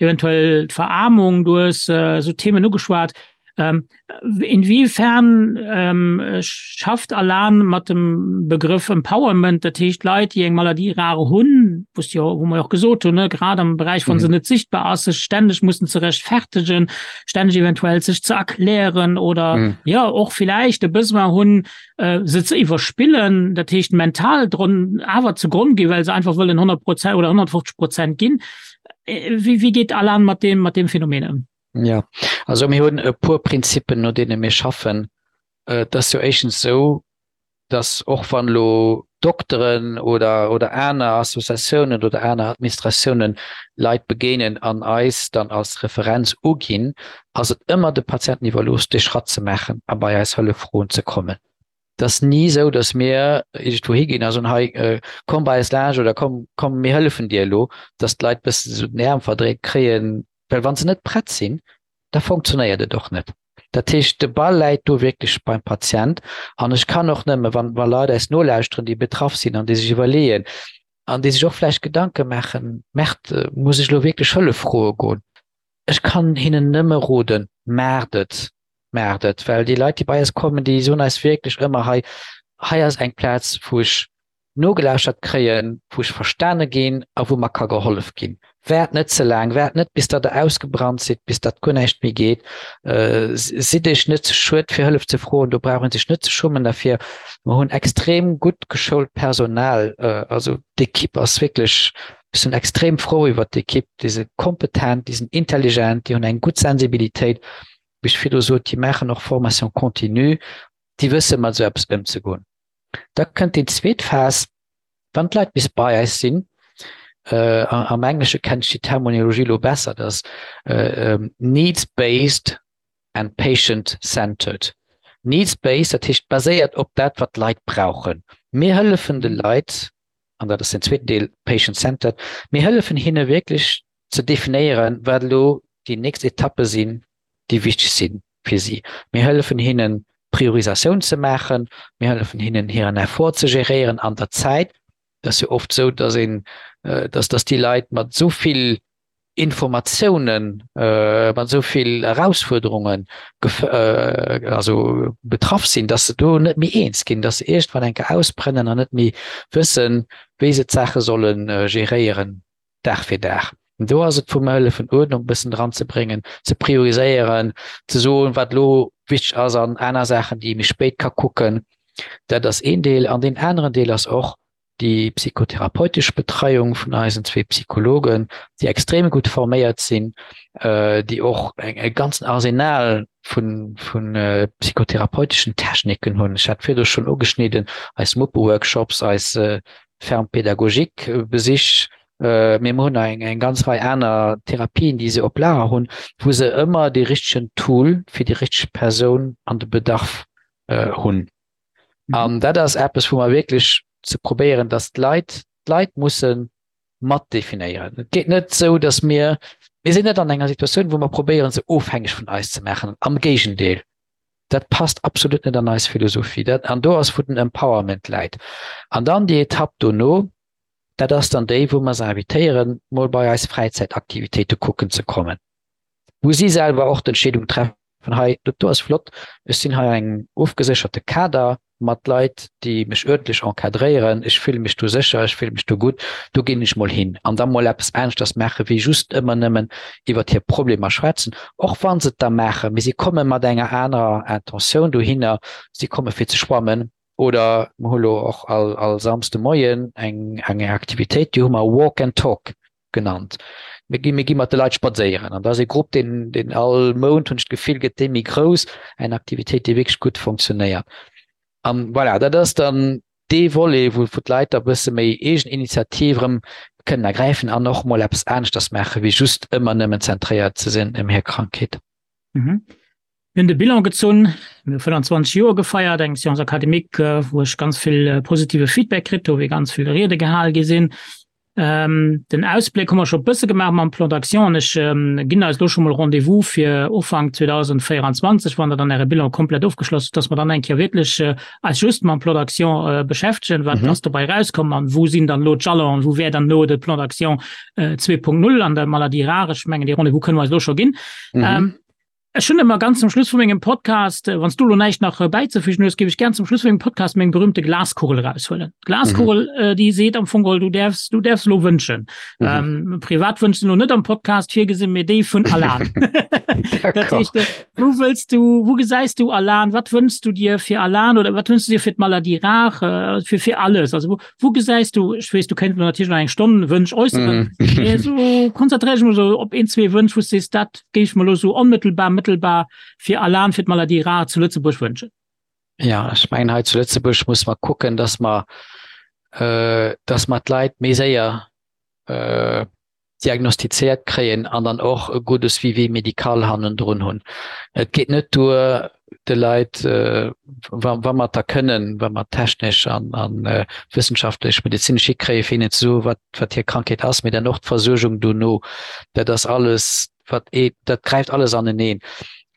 S2: eventuell d'Veraarmung, du hues esou Themen ugeschwat. Ähm, inwiefern ähm, schafft Alan mat dem Begrëff Empowerment, dat heescht Leit, déi eng Maladie rare hunn, wous jo, wou mer och gesot hunn, ne, grad am Beräich wann se mhm. net sichtbar ass, sech stänneg mussen ze rechtfertegen, stänneg eventuell sech ze erklären oder mhm. ja och vielleicht de Besoin hunn, äh, se ze iwwerspillen, dat heescht mental dron awer zu Grund gi, well se einfach wëllen 100 Prozent oder 150 Prozent ginn. Äh, wie, wie geht Alan mat dem mat dem Phänomen ëm?
S3: Ja, also mir hunn e puer Prinzippen, no deene mir schaffen. Et ass jo éischtens esou, datt och wann elo Dokteren oder, oder aner Associatiounen oder aner Administratiounen Leit begéinen an eis dann als Referenz uginn, ass et ëmmer de Patienten iwwerlooss, dee Schratt ze maachen a bei eis Hëllef froen ze kommen. Et ass ni esou, datt mir iergendwou higinn a soen, hei komm bei eis laanscht oder komm, komm mir hëllefen dir elo, datt d'Leit e bëssen esou den Äerm verdréit kréien, Well wa se net prett sinn, da funktionéiert et och net. Dat heescht, de Ball läit do wierklech beim Patient. An ech kann och nëmme, wann wa Leit eis nolauschteren, déi betraff sinn an déi sech iwwerleeën an déi sech och vläicht Gedanke maachen, Merde, muss ech elo wierklech Hëllef froe goen? Ech kann hinnen nëmme roden, Maacht et! Maacht et! Well déi Leit, déi bei eis kommen, déi soen eis wierklech ëmmer, Hei, hei ass eng Plaz, wou ech nogelauschtert kréien, wou ech verstane ginn a wou mer ka gehollef ginn. Waart net ze laang, waart net bis datt der ausgebrannt sidd, bis datt guer näischt méi geet. Sidd iech net ze schued fir Hëllef ze froen, do brauch een sech net ze schummen derfir. Mer hunn extrem gutt geschoult Personal, also d'Equipe ass wierklech, ech sinn extrem frou iwwert d'Equipe, déi si kompetent, déi sinn intelligent, déi hunn eng gutt Sensibilitéit, wéi ech virdu sot, déi maachen och Formation continue, déi wësse mat esou eppes ëmzegoen. Da kënnt déi zweet Phas, wann d'Leit bis bei eis sinn, am Englesche kennt ech déi Terminologie elo besser, dat ass needs-based and patient-centered. Needs-based, dat heescht baséiert op dat, wat d'Leit brauchen. Mir hëllefen de Leit, an dat ass den zweeten Deel, patient-centered, mir hëllefen hinne wierklech ze definéieren, wat elo déi nächst Etappe sinn, déi wichteg si fir si. Mir hëllefen hinnen, Priorisatioun ze maachen. Mir hëllefen hinnen, hiren Effort ze geréieren an der Zäit. Et ass jo oft esou, dass een, dass, dass déi Leit mat esou vill Informatiounen, mat esou vill Erausfuerderunge also betraff sinn, dass se do net méi eens ginn, dass se iergendwann eng Kéier ausbrennen an net méi wëssen, wéi se d'Saache solle geréieren. Dag fir Dag. Do ass et vu mer hëllefen Uerdnung e bëssen dran ze bréngen, ze prioriséieren, ze soen, wat elo wichteg ass an aner Saachen, déi ee méi spéit ka kucken. Dat ass een Deel. An deen aneren Deel ass och déi psychotherapeutesch Betreiung vun eisen zwee Psychologen, déi extrem gutt forméiert sinn, déi och e ganzen Arsenal vu psychotherapeuteschen Techniken hunn. Ech hat virdu schonn ugeschnidden, eis Muppe-Workshops, eis Ferme pédagogique Besich. Mee mer hunn nach eng eng ganz Rei aner Therapien, déi se op Lager hunn, wou se ëmmer dee richtegen Tool fir déi richteg Persoun an de Bedarf hunn. An dat ass eppes, wou mer wierklech ze probéieren, dass d'Leit, d'Leit musse mat definéieren. Et geet net esou, dass mir, mir sinn net an enger Situatioun, wou mer probéieren, se ofhängeg vun eis ze maachen. Am Géigendeel, dat passt absolut net an eis Philosophie. Dat, an do ass, wou den Empowerment läit. An dann déi Etapp dono, dat ass dann déi, wou mer se invitéieren, mol bei eis Fräizäitaktivitéite kucken ze kommen, wou si selwer och d'Entscheedung treffen, hei, dat do ass flott, ech sinn hei an engem ofgesécherte Kader mat Leit, déi mech uerdentlech encadréieren, ech fille mech do sécher, ech fille mech do gutt, do ginn ech mol hin. An da mol eppes aneschters maache wéi just ëmmer nëmmen iwwert hir Problemer schwätzen, och wa se et da maachen, mee si komme mat enger anerer Intentioun dohinner, si komme fir ze schwammen oder mer hu lo och all all Samsde Moien eng eng Aktivitéit, déi hu mer Walk and Talk genannt. Mir gi mir gi mat de Leit spadséieren an da ass e Grupp, deen deen all Mount, hunn ech d'Gefill, gëtt dee méi grouss, eng Aktivitéit, déi wierklech gutt fonctionnéiert. An voilà, dat ass dann dee Volet, wou wou d'Leit da bësse méi eegen Initiativ erëm kënnen ergräifen an och mol eppes aneschters maache wéi just ëmmer nëmmen zentréiert ze sinn ëm hir Krankheet.
S2: Mhm. Mir hunn de Bilan gezunn, mir hu 25 Joer gefeiert, eng Séance académique, wou ech ganz vill positive Feedback kritt hu, wéi ganz vill Riede gehal gi sinn. Den Ausbléck hu mer scho e bësse gemaach mam Plan d'action an ech ginn eis elo scho mol Rendez-vous fir Ufank 2024, wann Der dann Äre Bilan komplett ofgeschloss hutt, dass mer dann eng Kéier wierklech eis just mam Plan d'action beschäftegen, wat ass dobäi erauskomm an wou sinn dann elo d'Jalonen, wou wär dann elo de Plan d'action 2.0 an der Maladie rare. Ech mengen, dee Rendez-vous kënne mer eis elo scho ginn. Ech hunn ëmmer ganz zum Schluss vu mengem Podcast, wann s du elo näischt nach bäizefügen hues, géif ech gär zum Schluss vu mengem Podcast meng berühmte Glaskugel eraushuelen. D'Glaskugel, mhm. déi seet am Fong geholl, du däerfs, du däerfs elo wënschen. Mhm. Ähm, privat Wënsch sinn elo net am Podcast virgesinn, mee déi vun Alan. Dat heescht, äh, wou wëlls du, wou gesäis du Alan? Wat wënschs du dir fir Alan oder wat wënschs du dir fir d'Maladie rare, äh, fir, fir alles? Also wou, wou gesäis du, ech weess, du kéints elo natierlech nach eng Stonn Wënsch äusseren, mhm. mee so konzentréier dech mol so op een, zwee Wënsch, wou s du sees, dat géif ech mer elo sou onmëttelbar, mëttelbar fir Alan, fir d'Maladie rare zu Lëtzebuerg wënschen.
S3: Ja, ech mengen hei zu Lëtzebuerg muss mer kucken, dass mer, äh, dass mer d'Leit méi séier äh, diagnostizéiert kréien an dann och e gudde Suivi médical hannendrun hunn. Et geet net duer, de Leit, äh, wa, wa mer et da kënnen, wa mer technesch an, an äh, wëssenschaftlech, medezinesch hikréien, fir hinnen ze soen, wat, wat hir Krankheet ass, mee dann och d'Versuergung dono. Dat ass alles, wat ee, dat gräift alles aneneen.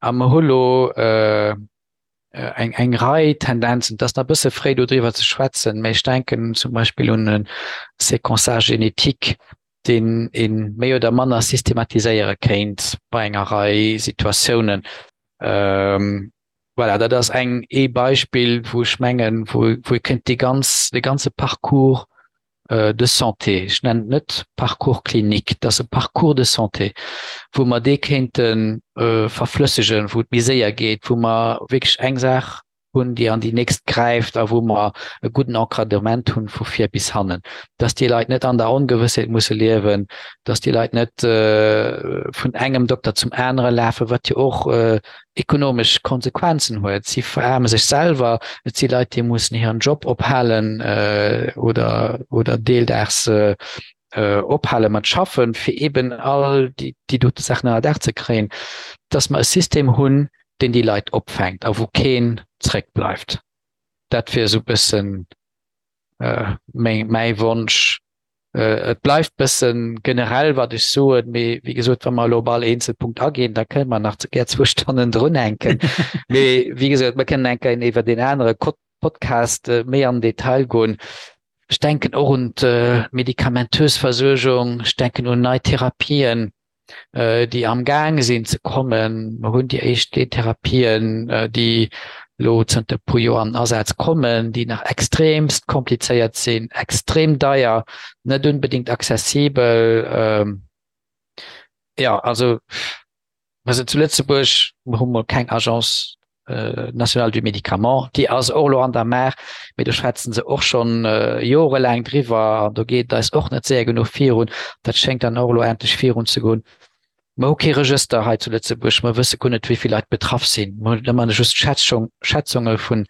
S3: A mer hu lo äh, eng, eng Rei Tendenzen, et ass nach e bësse fréi do driwwer ze schwätzen, mä ech denken zum Beispill un e Séquençage génétique, deen ee méi oder manner systematiséiere kéint bei enger Rei Situatiounen. Ähm, voilà, dat ass eng, ee Beispill, wou ech mengen, wou, wou ee kéint dee ganz, dee ganze Parcours de santé, ech nennen et net Parcours clinique, et ass e Parcours de santé, wou mer dee kéinte verflëssegen, wou et méi séier geet, wou mer wierklech eng Saach hunn, déi an déi nächst gräift a wou mer e gudden Encadrement hunn vu vir bis hannen, dass déi Leit net an der Ongewëssheet musse liewen, dass déi Leit net vun engem Dokter zum anere lafen, wat jo och ekonomesch Konsequenzen huet. Si veraarme sech selwer, et si Leit, déi mussen hiren Job ophalen oder, oder deeldaags ophale mat schaffen, fir eben all déi, déi dote Saachen ënner Daach ze kréien, dass mer e System hunn, deen déi Leit opfänkt a wou keen zréckbleift. Dat wier esou e bëssen meng, mäi Wonsch. Et bleift bëssen generell, wat ech soen, mee wéi gesot, wa mer elo op all eenzel Punkt aginn, da kënne mer nach gär zwou Stonnen drunhänken. Mee wéi gesot, mer kënnen eng Kéier iwwer deen anere Podcast méi am Detail goen. Ech denken och un d'medikamentös Versuergung, ech denken un nei Therapien, déi am Gaang sinn ze kommen. Mer hunn déi éischt Gentherapien, déi elo zënter e puer Joer an den Asaz kommen, déi nach extremst komplizéiert sinn, extrem deier, net unbedéngt accessibel. Jo, also mer sinn zu Lëtzebuerg, mer hu mol keng Agence nationale du Médicament, déi ass och elo an der Maach, mee do schwätzen se och schonn jorelaang driwwer an do geet et eis och net séier genuch virun. Dat schéngt dann och elo endlech virunzegoen. Mer hu kee Regëster hei zu Lëtzebuerg, mer wësse guer net, wéi vill Leit betraff sinn. Mer hunn ëmmer just Schätzung, Schätzunge vu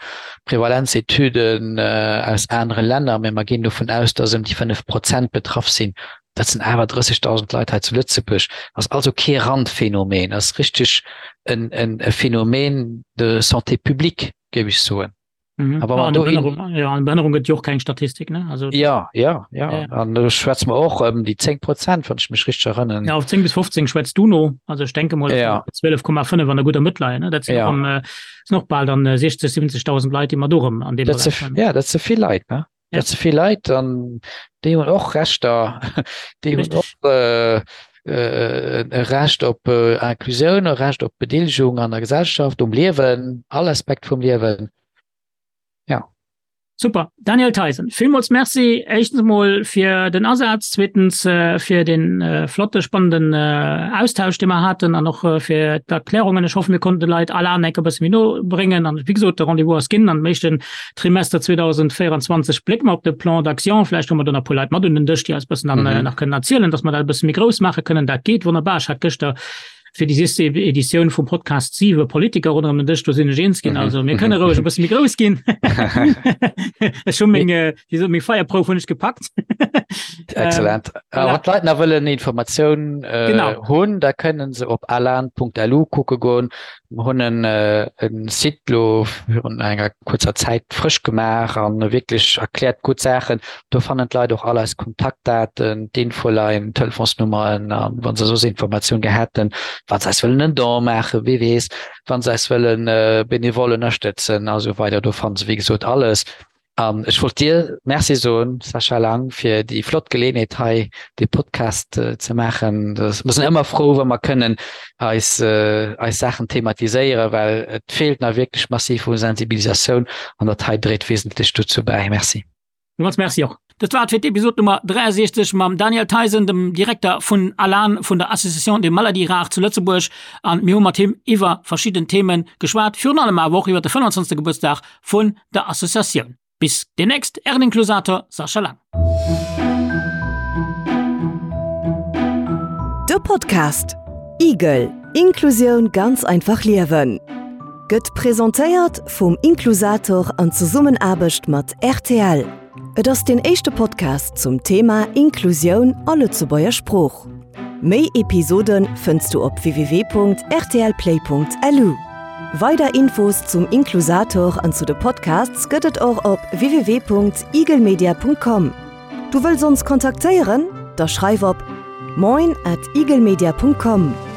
S3: Prevalenzetüden aus anere Länner, mee mer ginn dovun aus, dass ëm déi 5 Prozent betraff sinn. Dat sinn awer 30.000 Leit hei zu Lëtzebuerg. Ass also kee Randphänomen, ass richteg en, en, e Phänomen de santé publique, géif ech soen.
S2: Mhm. Aber ja, Behënnerung, ja, an Behënnerung gëtt jo och keng Statistik ne
S3: also ja ja ja, ja. an do schwätze mer och ëm déi 10 Prozent wann ech mech richteg erënneren.
S2: Ja, auf 10 bis 15 schwätzt du no also ech denke mol
S3: ja.
S2: 12,5 an der guter Mëtt leien ne dat sinn ja. um, äh, sinn och bal dann 60 70.000 Leit déi mer do rëm
S3: an deem Dat se, ja dat se vill Leit ne ja. dat se vill Leit an déi hunn och Rechter déi hunn och äh, äh, e Recht op äh, Inclusioun, e Recht op Bedeelegung an der Gesellschaft, um Liewen, all Aspekt vum Liewen. Ja.
S2: Super. Daniel Theisen, villmools Merci éischtens emol fir den Asaz, zweetens äh, fir den äh, flotte, spannenden äh, Austausch, dee mer haten an och äh, fir d'Erklärungen. Ech hoffe, mir konnten de Leit Alan enk e bësse méi no bréngen an wéi gesot, de Rendez-vous ass ginn an dem éischten Trimester 2024 blécke mer op de Plan d'action. Vläicht hu mer do nach e puer Leit mat un den Dësch, déi eis e bëssen dann mhm. nach kënnen erzielen, dass mer dat e bësse méi grouss maache kënnen. Dat geet wonnerbar. Ech hat gëschter fir déi sieste Editioun vum Podcast siwe Politiker ronderëm den Dësch, do sinn ech eens ginn. Mhm. Also mir kënne roueg e bësse méi grouss ginn. Ech hu meng, äh, wéi sot, meng Feierprouf hunn ech gepackt.
S3: Excellent. Ähm, voilà. Wann d'Leit nach wëllen Informatioun äh, genau. hunn, da kënnen se op alan.lu kucke goen. Mer hunn en e Site lo virun enger kuerzer Zäit frësch gemaach an wierklech erkläert gutt Saachen. Do fannen d'Leit och all eis Kontaktdaten, d'Infoline, d'Telefonsnummeren an wa se soss Informatioun gär hätten, wa se eis wëllen en Don maachen, wie weess, wa se eis wëllen benevol ënnerstëtzen a sou weider. Do fanne se wéi gesot alles. An ech wollt dir Merci soen, Sascha Lang, fir déi flott Geleeënheet hei dee Podcast ze maachen. Mir sinn ëmmer frou, wa mer kënnen eis eis Saachen thematiséieren, well et feelt nach wierklech massiv u Sensibilisatioun an dat hei dréit wesentlech dozou bäi. Merci.
S2: Villmools Merci och. Dat war et fir d'Episod Nummer 63 mam Daniel Theisen, dem Direkter vun ALAN, vun der Association des Maladies Rares zu Lëtzebuerg. An mir hu mat him iwwer verschidden Themen geschwat, virun allem awer och iwwer de 25. Gebuertsdag vun der Associatioun. Bis demnächst, Ären Inklusator Sascha Lang.
S1: De Podcast Igel, Inklusioun ganz einfach liewen gëtt presentéiert vum Inklusator an Zesummenaarbecht mat rtl. Et ass deen éischte Podcast zum Thema Inklusioun a Lëtzebuerger Sprooch. Méi Episode fënns du op www.rtlplay.lu. Weider Infos zum Inklusator an zu de Podcasts gëtt et och op www.igelmedia.com. Du wëlls ons kontaktéieren? Da schreif op moin at igelmedia.com.